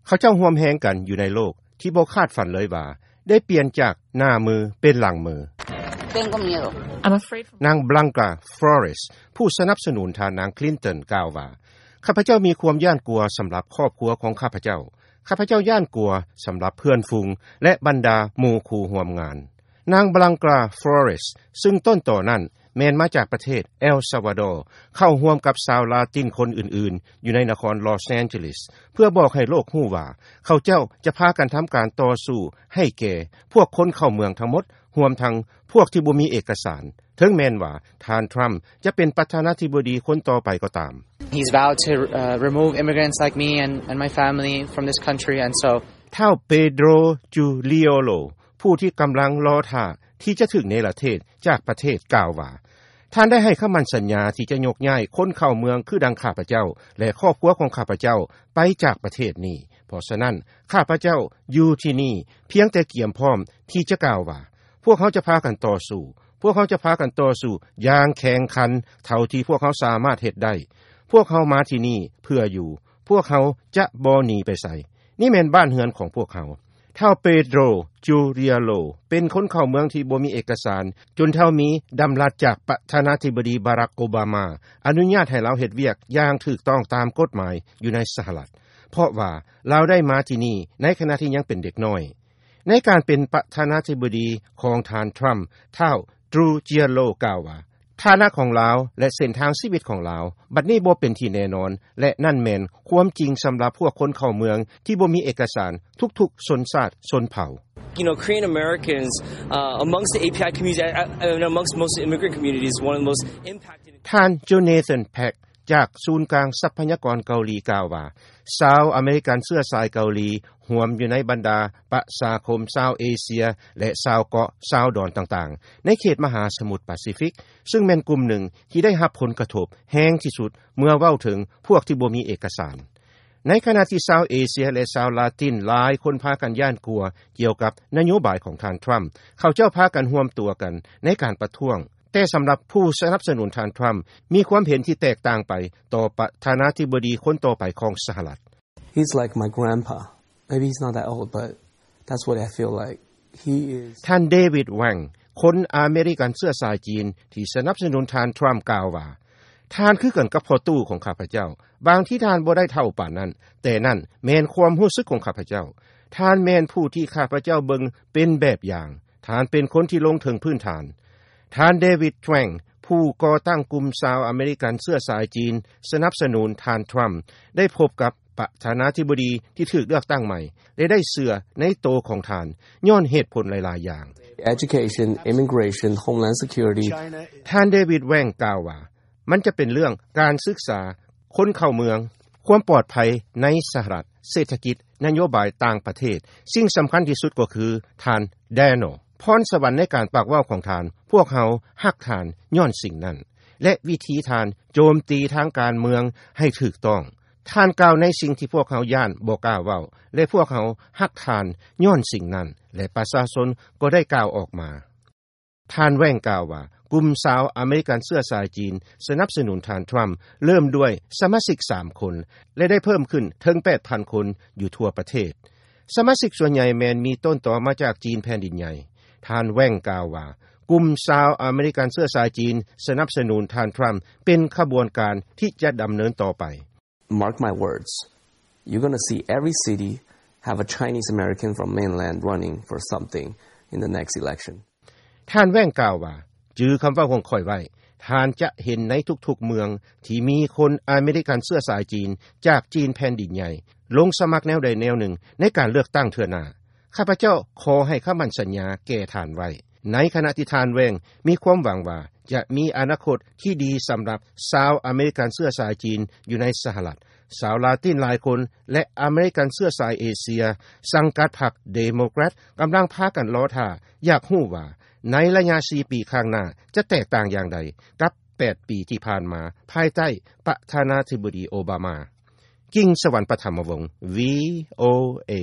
ເຂົາເຈົ້າຮ່ວມແຮງກັນຢູ່ໃນໂລກທີ່ບໍ່ຄາດຝັນເລີຍວ່າ ໄດ້ປ່ຽນຈາກໜ້າມືເປັນຫຼັງມື. Tengo miedo. I'm afraid. ນາງ Blanca Flores ຜູ້ສະໜັບສະໜູນທ່ານນາງ Clinton ກ່າວວ່າ, ຂ້າພະເຈົ້າມີຄວາມຢ້ານກົວສຳລັບຄອບຄົວຂອງຂ້າພະເຈົ້າ. ຂ້າພະເຈົ້າຢ້ານກົວສຳລັບເພື່ອນຝູງ ແລະ ບັນດາໝູ່ຄູ່ຮ່ວມງານ. ນາງ Blanca Flores ຊຶ່ງຕົ້ນຕໍນັ້ນແມ່ນມາຈາກປະເທດເອລຊາວາດໍ ເຂົ້າຮ່ວມກັບຊາວລາຕິນຄົນອື່ນໆ ຢູ່ໃນນະຄອນລອສແອນເຈລິສ ເພື່ອບອກໃຫ້ໂລກຮູ້ວ່າ ເຂົາເຈົ້າຈະພາກັນທຳການຕໍ່ສູ້ໃຫ້ແກ່ພວກຄົນເຂົ້າເມືອງທັງໝົດ, ຮວມທັງພວກທີ່ບໍ່ມີເອກະສານ, ເຖິງແມ່ນວ່າທ່ານ Trump ຈະເປັນປະທານາທິບໍດີຄົນຕໍ່ໄປກໍຕາມ. He's vowed to, uh, remove immigrants like me and, and my family from this country, and so ທ້າວ Pedro Curiello ຜູ້ທີ່ກຳລັງລໍຖ້າທີ່ຈະຖືກເນລະເທດຈາກປະເທດ ກ່າວວ່າ, ທ່ານໄດ້ໃຫ້ຄຳໝັ້ນສັນຍາທີ່ຈະຍົກຍ້າຍຄົນເຂົ້າເມືອງຄືດັ່ງຂ້າພະເຈົ້າ ແລະ ຄອບຄົວຂອງຂ້າພະເຈົ້າໄປຈາກປະເທດນີ້. ເພາະສະນັ້ນ ຂ້າພະເຈົ້າຢູ່ທີ່ນີ້ພຽງແຕ່ກຽມພ້ອມທີ່ຈະກ່າວວ່າ, ພວກເຮົາຈະພາກັນຕໍ່ສູ້, ພວກເຮົາຈະພາກັນຕໍ່ສູ້ຢ່າງແຂງຂັນເທົ່າທີ່ພວກເຮົາສາມາດເຮັດໄດ້. ພວກເຮົາມາທີ່ນີ້ເພື່ອຢູ່, ພວກເຮົາຈະບໍ່ໜີໄປໃສ. ນີ້ແມ່ນບ້ານເຮືອນຂອງພວກເຮົາ. ທ້າວ Pedro Curiello ເປັນຄົນເຂົ້າເມືອງທີ່ບໍ່ມີເອກະສານ ຈົນເທົ່າມີດຳລັດຈາກປະທານາທິບໍດີ Barack Obama ອະນຸຍາດໃຫ້ລາວເຮັດວຽກຢ່າງຖືກຕ້ອງຕາມກົດໝາຍຢູ່ໃນສະຫະລັດ, ເພາະວ່າລາວໄດ້ມາທີ່ນີ້ໃນຂະນະທີ່ຍັງເປັນເດັກນ້ອຍ. ໃນການເປັນປະທານາທິບໍດີຂອງທ່ານ Trump, ທ້າວ Trujillo ກ່າວວ່າ, ຖານະຂອງລາວ ແລະ ເສັ້ນທາງຊີວິດຂອງລາວ ບັດນີ້ບໍ່ເປັນທີ່ແນ່ນອນ ແລະ ນັ້ນແມ່ນຄວາມຈິງສຳລັບພວກຄົນເຂົ້າເມືອງທີ່ບໍ່ມີເອກະສານທຸກໆຊົນຊາດຊົນເຜົ່າ. You know, Korean Americans, uh, amongst the A P I community, uh, and amongst most immigrant communities, one of the most impacted. ທ່ານ Jonathan Pak ຈາກສູນກາງຊັບພະຍາກອນເກົາຫຼີກ່າວວ່າ, ຊາວອາເມລິກັນເຊື້ອສາຍເກົາຫຼີ ຮວມຢູ່ໃນບັນດາປະຊາຄົມຊາວເອເຊຍ ແລະ ຊາວເກາະ, ຊາວດອນຕ່າງໆ ໃນເຂດມະຫາສະໝຸດປາຊີຟິກ, ຊຶ່ງແມ່ນກຸ່ມໜຶ່ງທີ່ໄດ້ຮັບຜົນກະທົບແຮງທີ່ສຸດ ເມື່ອເວົ້າເຖິງພວກທີ່ບໍ່ມີເອກະສານ. ໃນຂະນະທີ່ຊາວເອເຊຍ ແລະ ຊາວລາຕິນຫຼາຍຄົນພາກັນຢ້ານກົວກ່ຽວກັບນະໂຍບາຍຂອງທ່ານ Trump, ເຂົາເຈົ້າພາກັນຮວມຕົວກັນໃນການປະທ້ວງ. ແຕ່ສຳລັບຜູ້ສະໜັບສະໜູນທ່ານ Trump ມີຄວາມເຫັນທີ່ແຕກຕ່າງໄປຕໍ່ປະທານາທິບໍດີຄົນຕໍ່ໄປຂອງສະຫະລັດ. He's like my grandpa. Maybe he's not that old, but that's what I feel like. He is. ທ່ານ David Wang ຄົນອາເມລິກັນເຊື້ອສາຍຈີນທີ່ສະໜັບສະໜູນທ່ານ Trump ກ່າວວ່າ, ທ່ານຄືກັນກັບພໍ່ຕູ້ຂອງຂ້າພະເຈົ້າ. ບາງທີທ່ານບໍ່ໄດ້ເຖົ້າປານນັ້ນ, ແຕ່ນັ້ນແມ່ນຄວາມຮູ້ສຶກຂອງຂ້າພະເຈົ້າ. ທ່ານແມ່ນຜູ້ທີ່ຂ້າພະເຈົ້າເບິ່ງເປັນແບບຢ່າງ. ທ່ານເປັນຄົນທີ່ລົງເຖິງພື້ນຖານ. ທ່ານ David Wang ຜູ້ກໍ່ຕັ້ງກຸ່ມຊາວອາເມລິກັນເຊື້ອສາຍຈີນສະໜັບສະໜູນທ່ານ Trump ໄດ້ພົບກັບປະທານາທິບໍດີທີ່ຖືກເລືອກຕັ້ງໃໝ່ ແລະ ໄດ້ເຊື່ອໃນໂຕຂອງທ່ານ ຍ້ອນເຫດຜົນຫຼາຍໆຢ່າງ. Education, immigration, homeland security. ທ່ານ David Wang ກ່າວວ່າ, ມັນຈະເປັນເລື່ອງການສຶກສາ, ຄົນເຂົ້າເມືອງ, ຄວາມປອດໄພໃນສະຫະລັດ, ເສດຖະກິດ, ນະໂຍບາຍຕ່າງປະເທດ, ສິ່ງສຳຄັນທີ່ສຸດກໍຄືທ່ານ Daniel. ພອນສະຫວັນໃນການປາກເວົ້າຂອງທ່ານ, ພວກເຮົາຮັກທ່ານຍ້ອນສິ່ງນັ້ນ ແລະ ວິທີທ່ານໂຈມຕີທາງການເມືອງໃຫ້ຖືກຕ້ອງ. ທ່ານກ່າວໃນສິ່ງທີ່ພວກເຮົາຢ້ານບໍ່ກ້າເວົ້າ ແລະ ພວກເຮົາຮັກທ່ານຍ້ອນສິ່ງນັ້ນ ແລະ ປະຊາຊົນກໍໄດ້ກ່າວອອກມາ. ທ່ານ Wang ກ່າວວ່າ, ກຸ່ມຊາວອາເມລິກັນເຊື້ອສາຍຈີນສະໜັບສະໜູນທ່ານ Trump ເລີ່ມດ້ວຍສະມາຊິກສາມຄົນ ແລະ ໄດ້ເພີ່ມຂຶ້ນເຖິງແປດພັນຄົນຢູ່ທົ່ວປະເທດ. ສະມາຊິກສ່ວນໃຫຍ່ແມ່ນມີຕົ້ນຕໍມາຈາກຈີນແຜ່ນດິນໃຫຍ່. ທ່ານ Wang ກ່າວວ່າ, ກຸ່ມຊາວອາເມລິກັນເຊື້ອສາຍຈີນສະໜັບສະໜູນທ່ານ Trump ເປັນຂະບວນການທີ່ຈະດຳເນີນຕໍ່ໄປ. Mark my words. You're gonna see every city have a Chinese American from mainland running for something in the next election. ທ່ານ Wang ກ່າວວ່າ, ຈື່ຄຳເວົ້າຂອງຂ້ອຍໄວ້, ທ່ານຈະເຫັນໃນທຸກໆເມືອງທີ່ມີຄົນອາເມລິກັນເຊື້ອສາຍຈີນຈາກຈີນແຜ່ນດິນໃຫຍ່ ລົງສະໝັກແນວໃດແນວໜຶ່ງໃນການເລືອກຕັ້ງເທື່ອໜ້າ. ຂ້າພະເຈົ້າຂໍໃຫ້ຄຳໝັ້ນສັນຍາແກ່ທ່ານໄວ້. ໃນຂະນະທີ່ທ່ານ Wang ມີຄວາມຫວັງວ່າຈະມີອະນາຄົດທີ່ດີສຳລັບຊາວອາເມລິກັນເຊື້ອສາຍຈີນຢູ່ໃນສະຫະລັດ, ຊາວລາຕິນຫຼາຍຄົນ ແລະ ອາເມລິກັນເຊື້ອສາຍເອເຊຍ ສັງກັດພັກເດໂມແຄຣດ ກຳລັງພາກັນລໍຖ້າຢາກຮູ້ວ່າ ໃນໄລຍະສີ່ປີຂ້າງໜ້າຈະແຕກຕ່າງຢ່າງໃດກັບແປດປີທີ່ຜ່ານມາ ພາຍໃຕ້ປະທານາທິບໍດີໂອບາມາ. ກິ່ງສະຫວັນ ປະຖຳມະວົງ ວີໂອເອ.